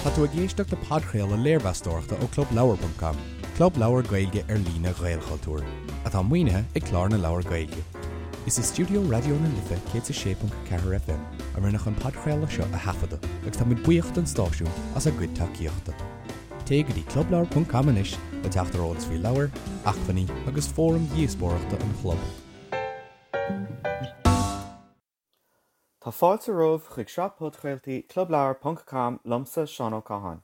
Tá tú ag éisteacht le podchraoladh léirmheastóireachta ó ClubLeabhar.com, club leabhar Gaeilge ar líne Ghaelchultúir, atá maoinithe ag Clár na Leabhar Gaeilge. Is i stiúideo Raidió na Life 106.4 FM a rinneadh an podchraoladh seo a thaifeadadh agus táimid buíoch don stáisiún as a gcuid tacaíochta. Téigh go dtí clubleabhar.com anois le teacht ar eolas faoi leabhair, acmhainní agus fóraim dhíospóireachta an chlub. Tá fáilte romhaibh chuig sraith podchraoltaí Clubleabhar ponc com liomsa, Seán Ó Catháin.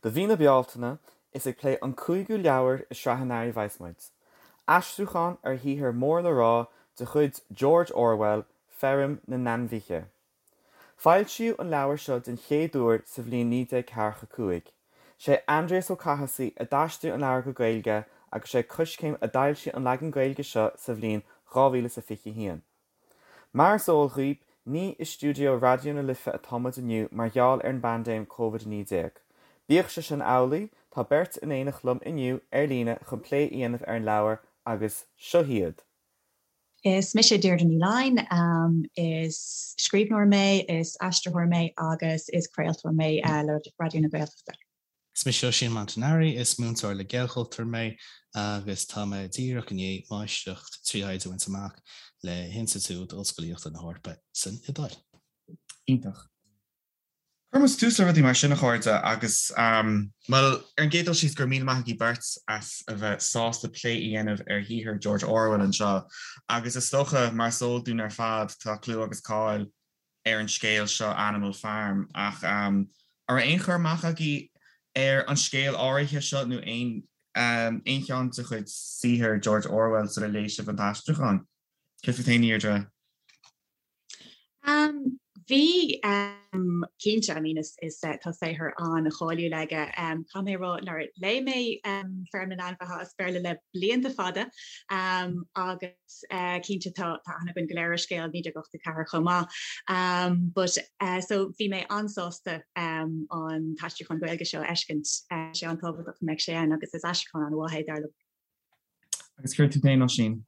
Do mhí na Bealtaine, is ag plé an cúigiú leabhar i sraith an earraigh a bheas muid. Aistriúchán ar shaothar mór le rá de chuid George Orwell, Feirm na nAinmhithe. Foilsíodh an leabhar seo den chéad uair sa bhliain 1945. Sé Aindrias Ó Cathasaigh a d'aistrigh an leabhar go Gaeilge agus sé Coiscéim a d'fhoilsigh an leagan Gaeilge seo sa bhliain 2021. Mar is eol dhaoib, ní i stiúideo Raidió na Life atá muid inniu mar gheall ar an bpaindéim Covid-19. Bíodh sé sin amhlaidh, tá beirt in éineacht liom inniu ar líne chun plé a dhéanamh ar an leabhar agus seo hiad. Is mise Deirdre Ní Fhloinn. Is scríbhneoir mé, is aistritheoir mé agus is craoltóir mé le Raidió na Gaeltachta. Is mise Oisín Montanari, is múinteoir le Gaelchultúr mé agus tá mé díreach i ndiaidh máistreacht 3 thaighde a bhaint amach le hInstitiúid Ollscolaíochta na hEorpa san Iodáil. Iontach. Cuirfidh muid tús le rudaí mar sin, a chairde, agus, bhuel, ar an gcéad dul síos, go raibh míle maith agaibh beirt as a bheith sásta plé a dhéanamh ar shaothar George Orwell anseo. Agus is dócha, mar is eol dúinn ar fad, tá clú agus cáil ar an scéal seo Animal Farm ach an raibh aon chur amach agaibh ar an scéal áirithe seo nó aon aon cheann de chuid saothar George Orwell sula léigh sibh an t-aistriúchán? Céard fút féin, a Dheirdre? Bhí, cinnte, I mean is is tá saothar an-cháiliúil aige. Caithfidh mé a rá nár léigh mé Feirm na nAinmhithe as Béarla le blianta fada agus cinnte tá aithne againn go léir ar scéal 1984 chomh maith. But so bhí mé an-sásta an t-aistriúchán Gaeilge seo a fheiscint. Tá sé an-tábhachtach go mbeadh sé ann agus is aistriúchán an-mhaith é dar liom. Agus céard fút féin, Oisín?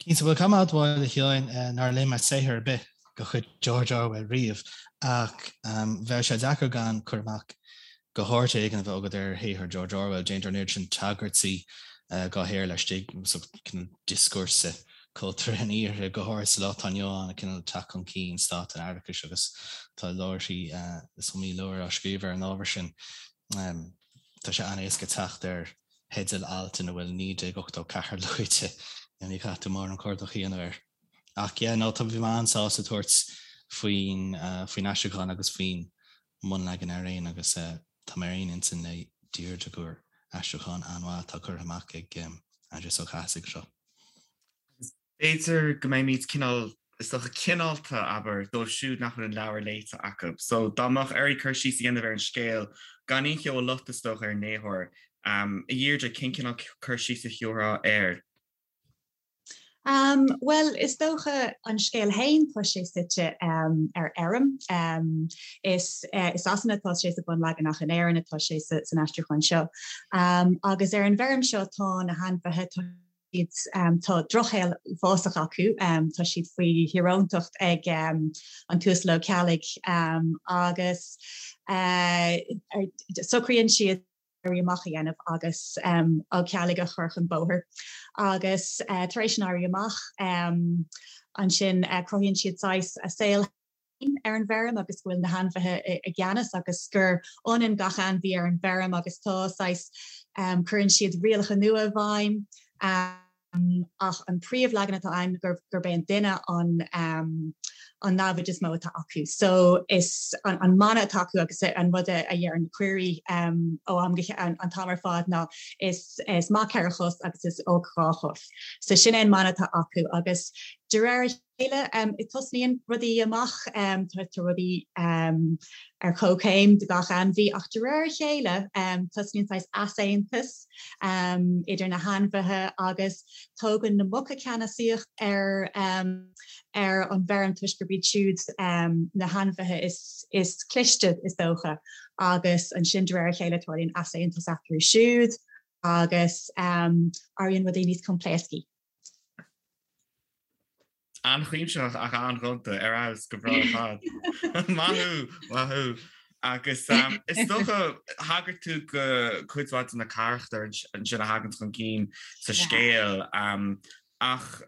Cinnte, bhuel caithfidh mé a admháil a Sheáin nár léigh mé saothar ar bith de chuid George Orwell riamh ach bheadh sé deacair gan cur amach go háit éigin a bheith agat ar shaothar George Orwell. Déantar an oiread sin tagairtí dá shaothar laistigh den dioscúrsa cultúrtha an iarthair, go háirithe sa lá atá inniu ann, cineál teacht chun cinn stát an fhaireachais agus tá leabharthaí, is iomaí leabhar á scríobh ar an ábhar sin. Tá sé an-éasca teacht ar theidil alt ina bhfuil 1984 luaite, ní chaithfidh tú mórán cuardach a dhéanamh air. Ach yeah, no, tá, bhí mé an-sásta tabhairt faoin, faoin aistriúchán agus faoin mbunleagan araon agus tá mé ar aon intinn le Deirdre gur aistriúchán an-mhaith atá curtha amach ag Aindrias Ó Cathasaigh anseo. Agus b'fhéidir go mbeimid cineál, is dócha, cineálta, abair, dóibh siúd nach bhfuil an leabhar léite acu. So dá mbeadh oraibh cur síos a dhéanamh ar an scéal, gan aon cheo a loit, is dócha, ar an léitheoir, a Dheirdre, cén cineál cur síos a thiúrfá air? Bhuel, is dócha an scéal féin, tá sé suite ar fheirm. Is i Sasana atá sé sa bhunleagan ach in Éirinn atá sé san aistriúchán seo. Agus ar an bhfeirm seo tá na hainmhithe, tá siad, tá drochshaol uafásach acu, tá siad faoi thíoróntacht ag an tUasal Ó Ceallaigh agus socraíonn siad, éirí amach a dhéanamh agus Ó Ceallaigh a chur chun bóthair. Agus tar éis an éirí amach, ansin cruthaíonn siad saghas a saol féin ar an bhfeirm agus go bhfuil na hainmhithe i gceannas agus gur ionann gach ainmhí ar an bhfeirm agus tá saghas, cuireann siad rialacha nua i bhfeidhm. ach an príomhleagan atá ann gurb é an duine an an namhaid is mó atá acu. So is an mana atá acu agus an rud a deireann na caoirigh ó am go an t-am ar fad ná is is maith 4 chos agus is olc 2 chos. So sin é an mana atá acu agus de réir a chéile tosnaíonn rudaí amach, tá rudaí ar comhchéim do gach ainmhí ach de réir a chéile tosnaíonn saghas easaontas idir na hainmhithe agus tógann na muca ceannasaíocht ar ar an bhfeirm toisc gurb iad siúd na hainmhithe is is cliste is dócha agus ansin de réir a chéile tarlaíonn easaontas eatarthu siúd agus éiríonn rudaí níos coimpléascaí. An-chuimsitheach ach an-ghonta, ar fheabhas, go breá ar fad. Maith thú! Maith thú! Agus is dócha, thagair tú go cuid mhaith de na carachtair ansin a thagann chun cinn sa scéal. Ach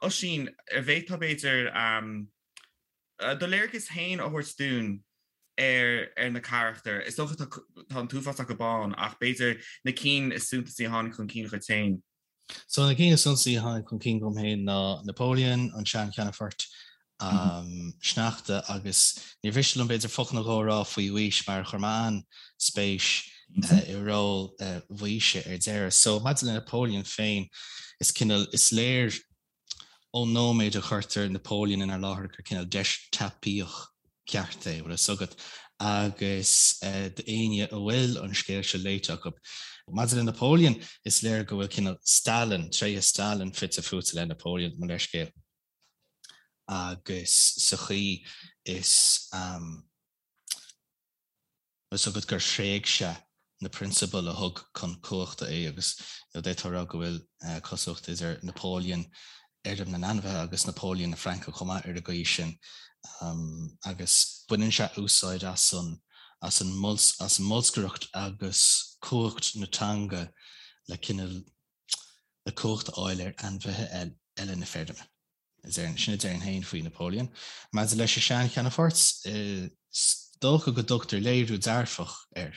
Oisín, an bhféadfá b'fhéidir do léargas féin a thabhairt dúinn ar na carachtair? Is dócha tá an t-uafás acu ann ach b'fhéidir na cinn is suntasaí a tháinig chun cinn dhuit féin. So na cinn is suntasaí a tháinig chun cinn dom féin ná Napoleon, an sean-cheannfort, Sneachta agus níor mhiste liom b'fhéidir focal nó dhó a rá faoi Mhaois mar chuir mé an-spéis i ról Mhaoise ar deireadh. So maidir le Napoleon féin is cineál, is léir ón nóiméad a chuirtear Napoleon inár láthair gur cineál deistéapaíoch ceart é, bhfuil a fhios agat, agus d'éinne a bhfuil an scéal seo léite acu. Maidir le Napoleon, is léir go bhfuil cineál Stalin, tréithe Stalin fite fuaite le Napoleon, mo leithscéal, agus sa chaoi is. Bhfuil a fhios agat gur thréig sé na prionsabail a thug chun cumhachta é agus d'fhéadfá a rá go bhfuil cosúlacht idir Napoleon Fheirm na nAinmhithe agus Napoleon na Fraince chomh maith ar an gcaoi sin agus baineann sé úsáid as an as an as an mbolscaireacht agus cumhacht na teanga le cineál le cumhacht a fháil ar ainmhithe eile na feirme. Sin a déarfainn féin faoi Napoleon. Maidir leis an sean-cheannfort, is dócha go dtugtar léiriú dearfach air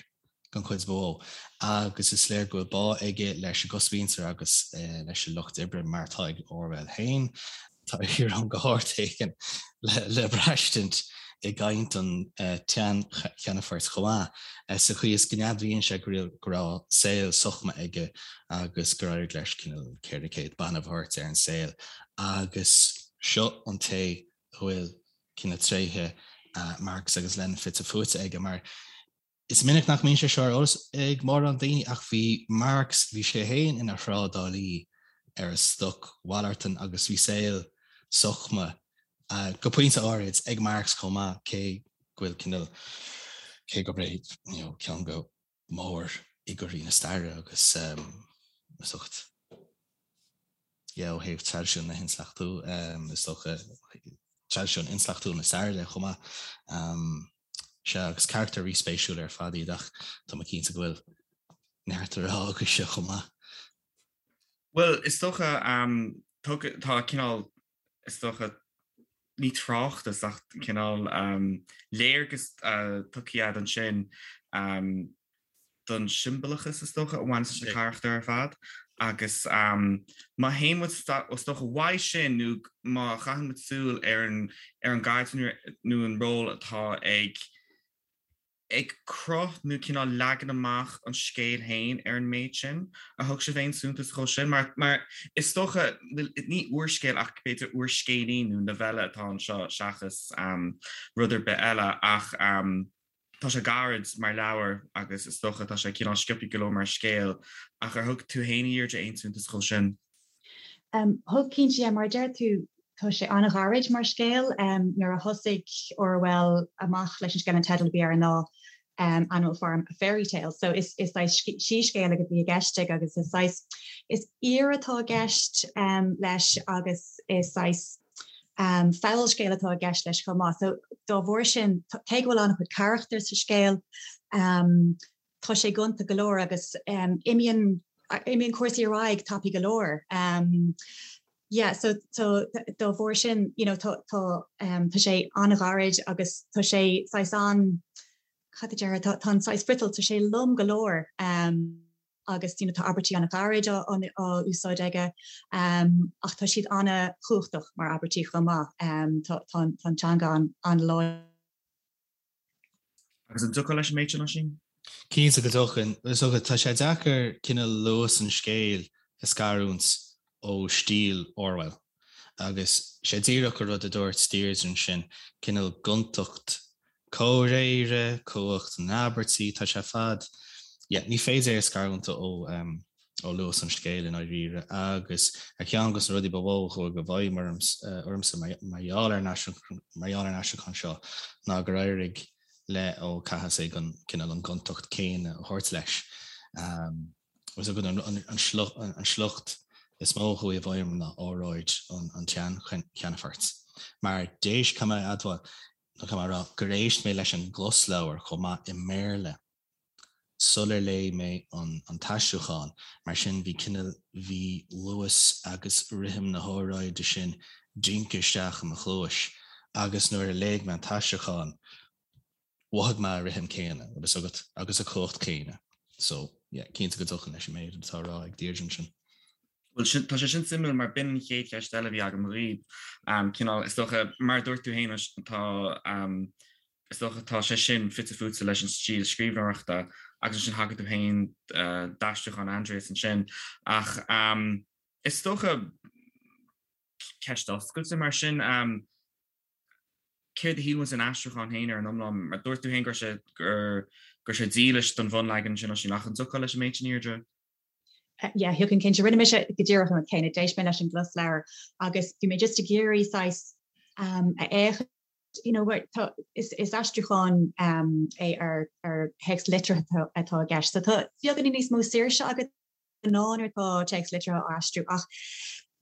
den chuid ba mhó agus is léir go bhfuil bá aige leis an gcosmhuintir agus leis an lucht oibre mar atá ag Orwell féin. Tá íoróin go hard éigin le braistint i gcaint an tsean-cheannfoirt chomh maith, sa chaoi is go n-admhaíonn sé go raibh saol sochma aige agus gur éirigh leis cineál 400 banbh a thabhairt ar an saol agus seo an té a bhfuil cineál tréithe Marx agus Lenin fite fuaite aige mar Is minic nach mbíonn sé seo ar eolas ag mórán daoine ach bhí Marx, bhí sé féin ina thrádálaí ar an stocmhalartán agus bhí saol sochma, go pointe áirid, ag Marx chomh maith cé go bhfuil cineál, cé gurb é you know ceann de mhórfhigiúirí na staire agus is dócha yeah ó thaobh traidisiún na hintleachtú is dócha traidisiún intleachtúil na staire de chomh maith. Sea, agus carachtair ríspéisiúla ar fad iad ach tá mé cinnte go bhfuil neart le rá agaibhse chomh maith. Bhuel, is dócha, tá cineál, is dócha, ní tráchtas ach cineál léargas tugtha agat ansin don siombalachas, is dócha, a bhaineann leis na carachtair ar fad. Agus má théann muid, is dócha, uaidh sin nó má chaitheann muid súil ar an ar an gcaidreamh nó an ról atá ag ag cruth nó cineál leagan amach an scéil féin ar an méid sin, ar thug sibh aon suntas dhó sin? Mar mar is dócha, ní úrscéal ach b'fhéidir úrscéilín nó novella atá anseo seachas rud ar bith eile ach Tá sé gairid mar leabhar agus is dócha tá sé cineál sciobtha go leor mar scéal, ach ar thug tú féin, a Dheirdre, aon suntas dhó sin? Thug, cinnte, yeah. Mar a deir tú, tá sé an-ghairid mar scéal. Nuair a thosaigh Orwell amach leis an scéal, an teideal a bhí air ná Animal Farm, A Fairy Tale. So is saghas síscéal a bhí i gceist aige agus is saghas, is aoir atá i gceist leis agus is saghas, Fabhalscéal atá i gceist leis chomh maith. So dá bharr sin, cé go bhfuil an-chuid carachtar sa scéal, tá sé gonta go leor agus imíonn imíonn cúrsaí ar aghaidh tapaidh go leor. Yeah, so so dá bharr sin, you know, tá tá tá sé an-ghairid agus tá sé saghas an cad a déarfá, tá tá an saghas friotal, tá sé lom go leor. agus you know tá abairtí an-ghairid á úsáid aige ach tá siad an-chumhachtach mar abairtí chomh maith. Tá an teanga an-láidir. Agus an dtiocfá leis an méid sin, Oisín? Cinnte go dtiocfainn. Is dócha, tá sé deacair cineál luas an scéil a scarúint ó stíl Orwell. Agus sé díreach an rud a dúirt Deirdre ansin, cineál gontacht comhréire, cumhacht na n-abairtí, tá sé ar fad, yeah, ní féidir é a scarúint ó ó luas an scéil i ndáiríre. Agus ar cheann de na rudaí ba mhó a chuaigh i bhfeidhm ormsa mar gheall ar an mar gheall ar an aistriúchán seo ná gur éirigh le Ó Cathasaigh an cineál an gontacht céanna a thabhairt leis. Is dócha an sliocht is mó a chuaigh i bhfeidhm ná óráid an tsean-cheannfoirt. Mar d'éist, caithfidh mé a admháil. nó caithfidh mé a rá, gur éist mé leis an gclosleabhar chomh maith i mBéarla sular léigh mé an t-aistriúchán, mar sin bhí cineál, bhí luas agus rithim na hóráide sin dingthe isteach i mo chluais agus nuair a léigh mé an t-aistriúchán, mhothaigh mé an rithim céanna, bhfuil fhios agat, agus an cumhacht céanna. So, yeah, cinnte go dtiocfainn leis an méid atá á rá ag Deirdre ansin. Bhuel, sin, tá sé sin suimiúil mar b'in an chéad cheist eile a bhí agam dhaoib. Cineál, is dócha, mar a dúirt tú féin, tá, is dócha, tá sé sin fite fuaite leis an stíl scríbhneoireachta agus ansin thagair tú féin d'aistriúchán Aindrias ansin. Ach is dócha, ceist oscailte mar sin, céard a shíl muid den aistriúchán féin ar an iomlán? Mar dúirt tú féin go raibh sé, go raibh sé dílis don bhunleagan ansin, Oisín, ach an dtiocfá leis an méid sin, a Dheirdre? Yeah, thiocfainn cinnte. Rinne mise go díreach an rud céanna. D'éist mé leis an gclosleabhar agus bhí mé just ag iarraidh saghas um, a fhéachaint you know, tá, is, is aistriúchán um, é ar, ar théacs liteartha atá i gceist. So tá beagáinín níos mó saoirse agat ná nuair atá téacs liteartha á aistriú ach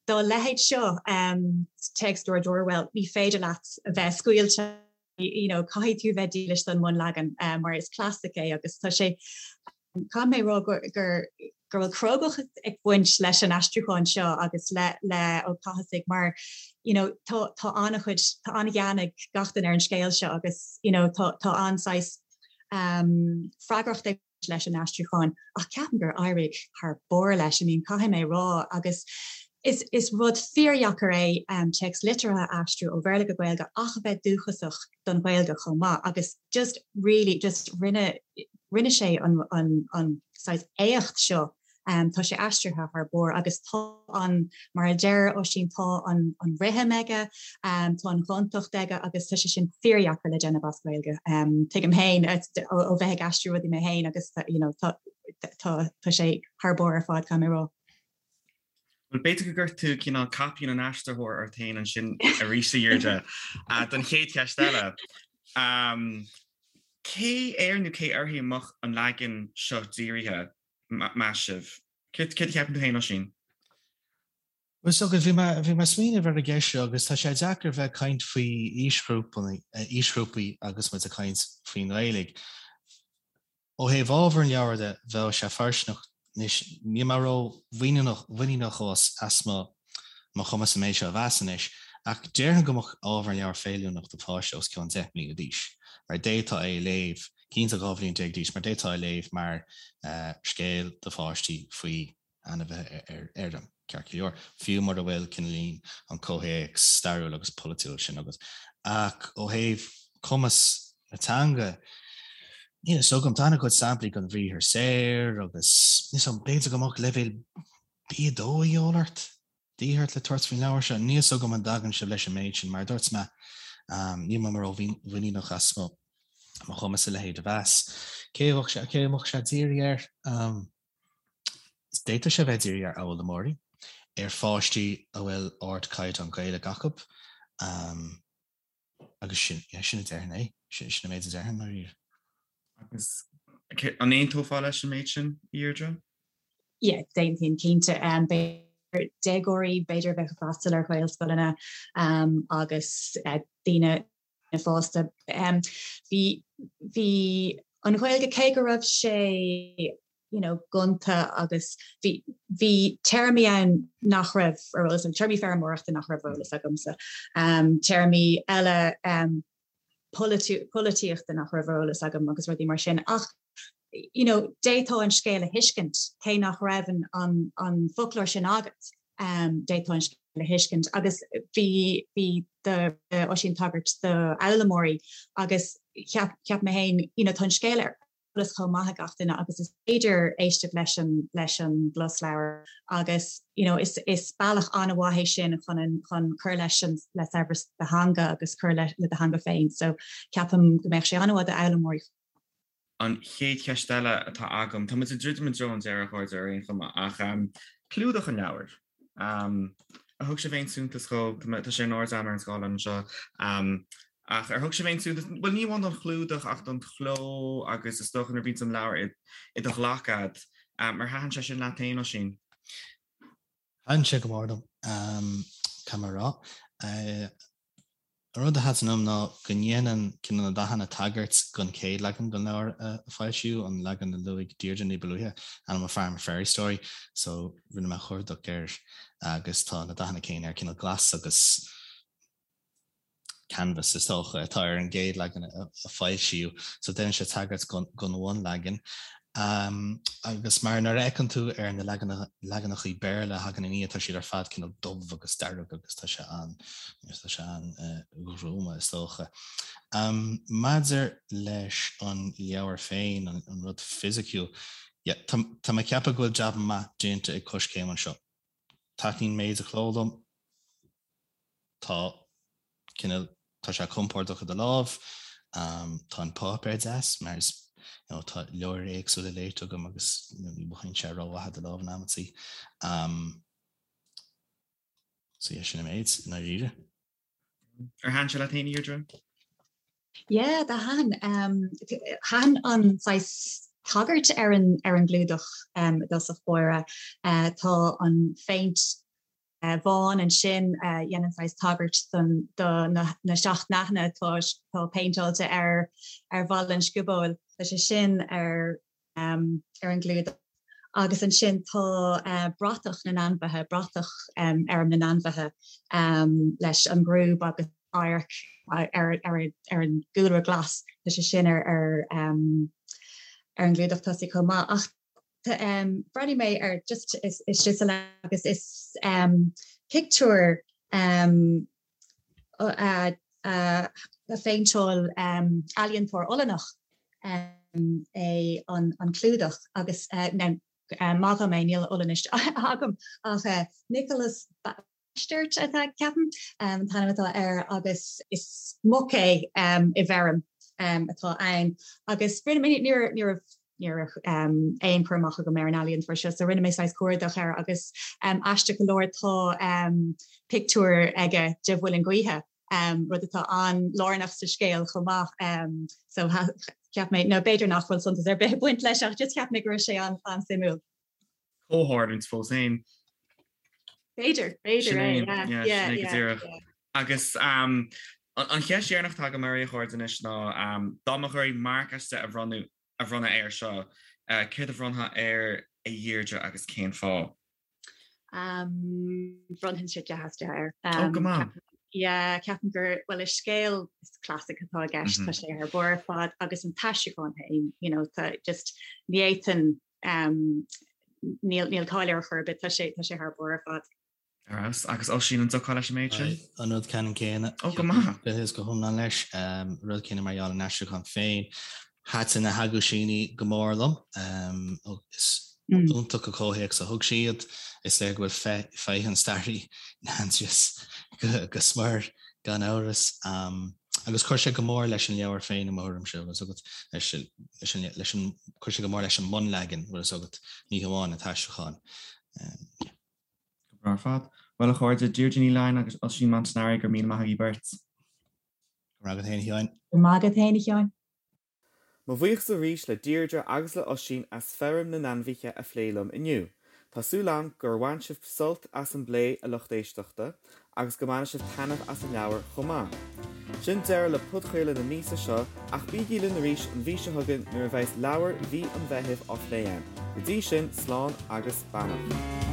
dá leithéid seo, um, téacs George Orwell, ní féidir leat a bheith scaoilte you know, caithfidh tú bheith dílis don mbunleagan um, mar is clasaic é agus tá sé Caithfidh mé a rá gur gur go bhfuil crógacht ag baint leis an aistriúchán seo agus le le Ó Cathasaigh mar you know tá tá an-chuid tá an-ghean ag gach duine ar an scéal seo agus you know tá tá an-saghas um freagracht ag baint leis an aistriúchán ach ceapaim gur éirigh thar barr leis I mean caithfidh mé a rá agus is is rud fíordheacair é um téacs liteartha a aistriú ó Bhéarla go Gaeilge ach a bheith dúchasach don Ghaeilge chomh maith agus just really just rinne rinne sé an an an saghas éacht seo um tá sé aistrithe thar barr agus tá an mar a deir Oisín tá an an rithim aige um tá an ghontacht aige agus tá sé sin fíordheacair le déanamh as Gaeilge um tuigim féin ó ó bheith ag aistriú rudaí mé féin agus you know tá tá tá sé thar barr ar fad caithfidh mé a rá. Bhuel, b'fhéidir go gcuir tú cineál caipín an aistritheora ort féin ansin arís, a Dheirdre, don chéad cheist eile. Cé air nó cé uirthi a mbeadh an leagan seo dírithe, meas sibh? Céard a cheapann tú féin, Oisín? Bhuel, is dócha, bhí mé bhí mé ag smaoineamh ar an gceist seo agus tá sé deacair bheith ag caint faoi aoisghrúpaí agus muid ag caint faoin nGaeilge. Ó thaobh ábhar an leabhair de, bheadh sé fóirsteanach anois, níl mé ró-mhuiníneach as mo mo chumas an méid seo a mheas anois, ach déarfainn go mbeadh ábhar an leabhair feiliúnach do pháiste os cionn 10 mbliana d'aois, mar d'fhéadfá é a léamh, cinnte 12 bhliain d'aois, mar d'fhéadfá é a léamh mar scéal do pháistí faoi ainmhithe ar fheirm, ceart go leor, fiú mura bhfuil cineáilín an comhthéacs stairiúil agus polaitiúil sin agat. Ach ó thaobh cumas na teanga, níl a fhios agam, tá an-chuid samplaí den bhriathar saor agus níl a fhios agam, b'fhéidir go mbeadh leibhéal B2 a dhíobháil ort, de dhíth ort le tabhairt faoin leabhar seo. Níl a fhios agam an dtagann sibh leis an méid sin, mar a dúirt mé, níl mé ró-mhuiníneach as mo chumas a leithéid a mheas. Cé a mbeadh sé dírithe air? D'fhéadfadh sé a bheith dírithe ar fhoghlaimeoirí, ar pháistí a bhfuil ardchaighdeán Gaeilge acu, agus sin, yeah, sin a déarfainn é, sin an méid a déarfainn, dáiríre. Agus an aontófá leis an méid sin, a Dheirdre? Yeah, d'aontóinn cinnte. B'fhéidir déagóirí, b'fhéidir a bheadh ag freastal ar Ghaelscoileanna agus daoine fásta. Bhí, bhí an Ghaeilge, cé go raibh sé you know gonta agus bhí, bhí téarmaí ann nach raibh ar eolas agam, téarmaí feirmeoireachta nach raibh ar eolas agamsa, téarmaí eile polaitíochta nach raibh ar eolas agam agus rudaí mar sin ach you know d'fhéadfá an scéal a thuiscint cé nach raibh an, an, an foclóir sin agat. D'fhéadfá an scéal a thuiscint agus bhí bhí do Oisín tagairt do fhoghlaimeoirí agus cheap cheap mé féin you know tá an scéal ar eolas chomh maith ag gach duine agus is féidir éisteacht leis an leis an gclosleabhar agus you know is is bealach an-mhaith é sin chun an chun cur leis an le saibhreas do theanga agus cur le le do theanga féin so ceapaim go mbeadh sé an-mhaith d'fhoghlaimeoirí. An chéad cheist eile atá agam, tá muid ag druidim i dtreo an deireadh, a chairde, ar aon chuma, ach clúdach an leabhair. Ar thug sibh aon suntas dhó? Tá sé in airde agam ar an scáileán anseo. Ach ar thug sibh aon suntas, bhuel ní amháin don chlúdach ach don chló agus is dócha nuair a bhíonns an leabhar i do ghlac a'd. Ar thaitin sé sin leat féin, Oisín? Thaitin sé go mór liom, caithfidh mé a rá. An rud a thaitin liom ná go ndéanann cineál na dathanna tagairt don chéad leagan den leabhar a foilsíodh, an leagan a luaigh Deirdre ní ba luaithe, Animal Farm, A Fairy Story. So rinne mé cuardach air agus tá na dathanna céanna air, cineál glas agus canvas is dócha atá ar an gcéad leagan a foilsíodh. So déanann sé tagairt don bhunleagan. Agus mar nuair a fheiceann tú ar na leaganachaí Béarla a thagann ina dhiaidh, tá siad ar fad cineál dubh agus dearg agus tá sé an, tá sé an-ghruama is dócha. Maidir leis an leabhar féin, an rud fisiciúil, yeah, tá, tá mé ag ceapadh go bhfuil jab maith déanta ag Coiscéim anseo. Taitníonn méid an chló liom. Tá cineál, tá sé compordach i do lámh, tá an páipéar deas mar is, you know, tá leabhair éagsúla léite agam agus you know, ní mhothaíonn sé rómhaith i do lámh in amantaí. Um, so yeah, sin an méid i ndáiríre. Ar thaitin sé leat féin, a Dheirdre? Yeah, do thaitin. Um, thaitin an saghas tagairt ar an, ar an gclúdach um, i dtosach báire. Uh, tá an phéint bhán ansin a dhéanann saghas tagairt don do na seacht ndathanna atá atá péinteáilte ar ar bhalla an sciobóil. Tá sé sin ar ar an gclúdach. Agus ansin tá bratach na n-ainmhithe, bratach Fheirm na nAinmhithe leis an gcrúb agus adharc ar ar ar an gcúlra glas. Tá sé sin ar ar ar an gclúdach tosaigh chomh maith. Ach Bhreathnaigh mé ar just istigh sa leabhar agus is pictiúr a phéinteáil ealaíontóir Ollannach é an clúdach agus maith dhom é níl Ollainnis agam ach Nicolas Bastert atá ceapaim an t-ainm atá air agus is muc é i bhfeirm atá ann agus rinne mé ní raibh ní raibh aon chur amach agam ar an ealaíontóir seo so rinne mé saghas cuardach air agus aisteach go leor tá pictiúr aige de mhuileann gaoithe rud atá an-lárnach sa scéal chomh maith so cheap mé nó b'fhéidir nach bhfuil suntas ar bith ag baint leis ach just cheap mé go raibh sé an-suimiúil. Comhtharlúint fós féin. B'fhéidir, b'fhéidir é, yeah, yeah, yeah, go díreach. Agus an cheist dheireanach atá agam oraibh a chairde anois ná dá mbeadh oraibh marc as 10 a bhronnadh a bhronnadh air seo, céard a bhronnfá air a Dheirdre agus cén fáth? Bhronnfainnse 10 as 10 air. Ó, go maith. Yeah, ceapaim gur, bhuel, is scéal, is classic atá i gceist, tá sé thar barr ar fad agus an t-aistriúchán féin, you know, tá just, ní fhéadfainn Níl níl caill air ar chor ar bith, tá sé tá sé thar barr ar fad. Ar fheabhas. Agus Oisín, an dtiocfá leis an méid sin? An rud ceannann céanna. Ó, go maith. Go go hiomlán leis. Rud céanna mar gheall ar an aistriúchán féin. Thaitin na haguisíní go mór liom. Is iontach an comhthéacs a thug siad. Is léir go bhfuil féith an staraí in Aindrias go smior, gan amhras. Agus chuir sé go mór leis an leabhar féin i mo thuairimse, bhfuil fhios agat, leis, leis an, leis an, chuir sé go mór leis an mbunleagan, bhfuil fhios agat, ní hamháin an t-aistriúchán. Yeah. Go breá ar fad. Bhuel, a chairde, Deirdre Ní Laighin agus Oisín Montanari, go raibh míle maith agaibh beirt. Go raibh maith agat féin, a Sheáin. Go raibh maith agat féin, a Sheáin. Mo bhuíochas arís le Deirdre agus le Oisín as Feirm na nAinmhithe a phlé liom inniu. Tá súil agam gur bhain sibh sult as an bplé, a lucht éisteachta, agus go mbainfidh sibh taitneamh as an leabhar chomh maith. Sin deireadh le podchraoladh na míosa seo, ach bígí linn arís an mhí seo chugainn nuair a bheas leabhar mhí an Mheithimh á phlé againn. Go dtí sin, slán agus beannacht.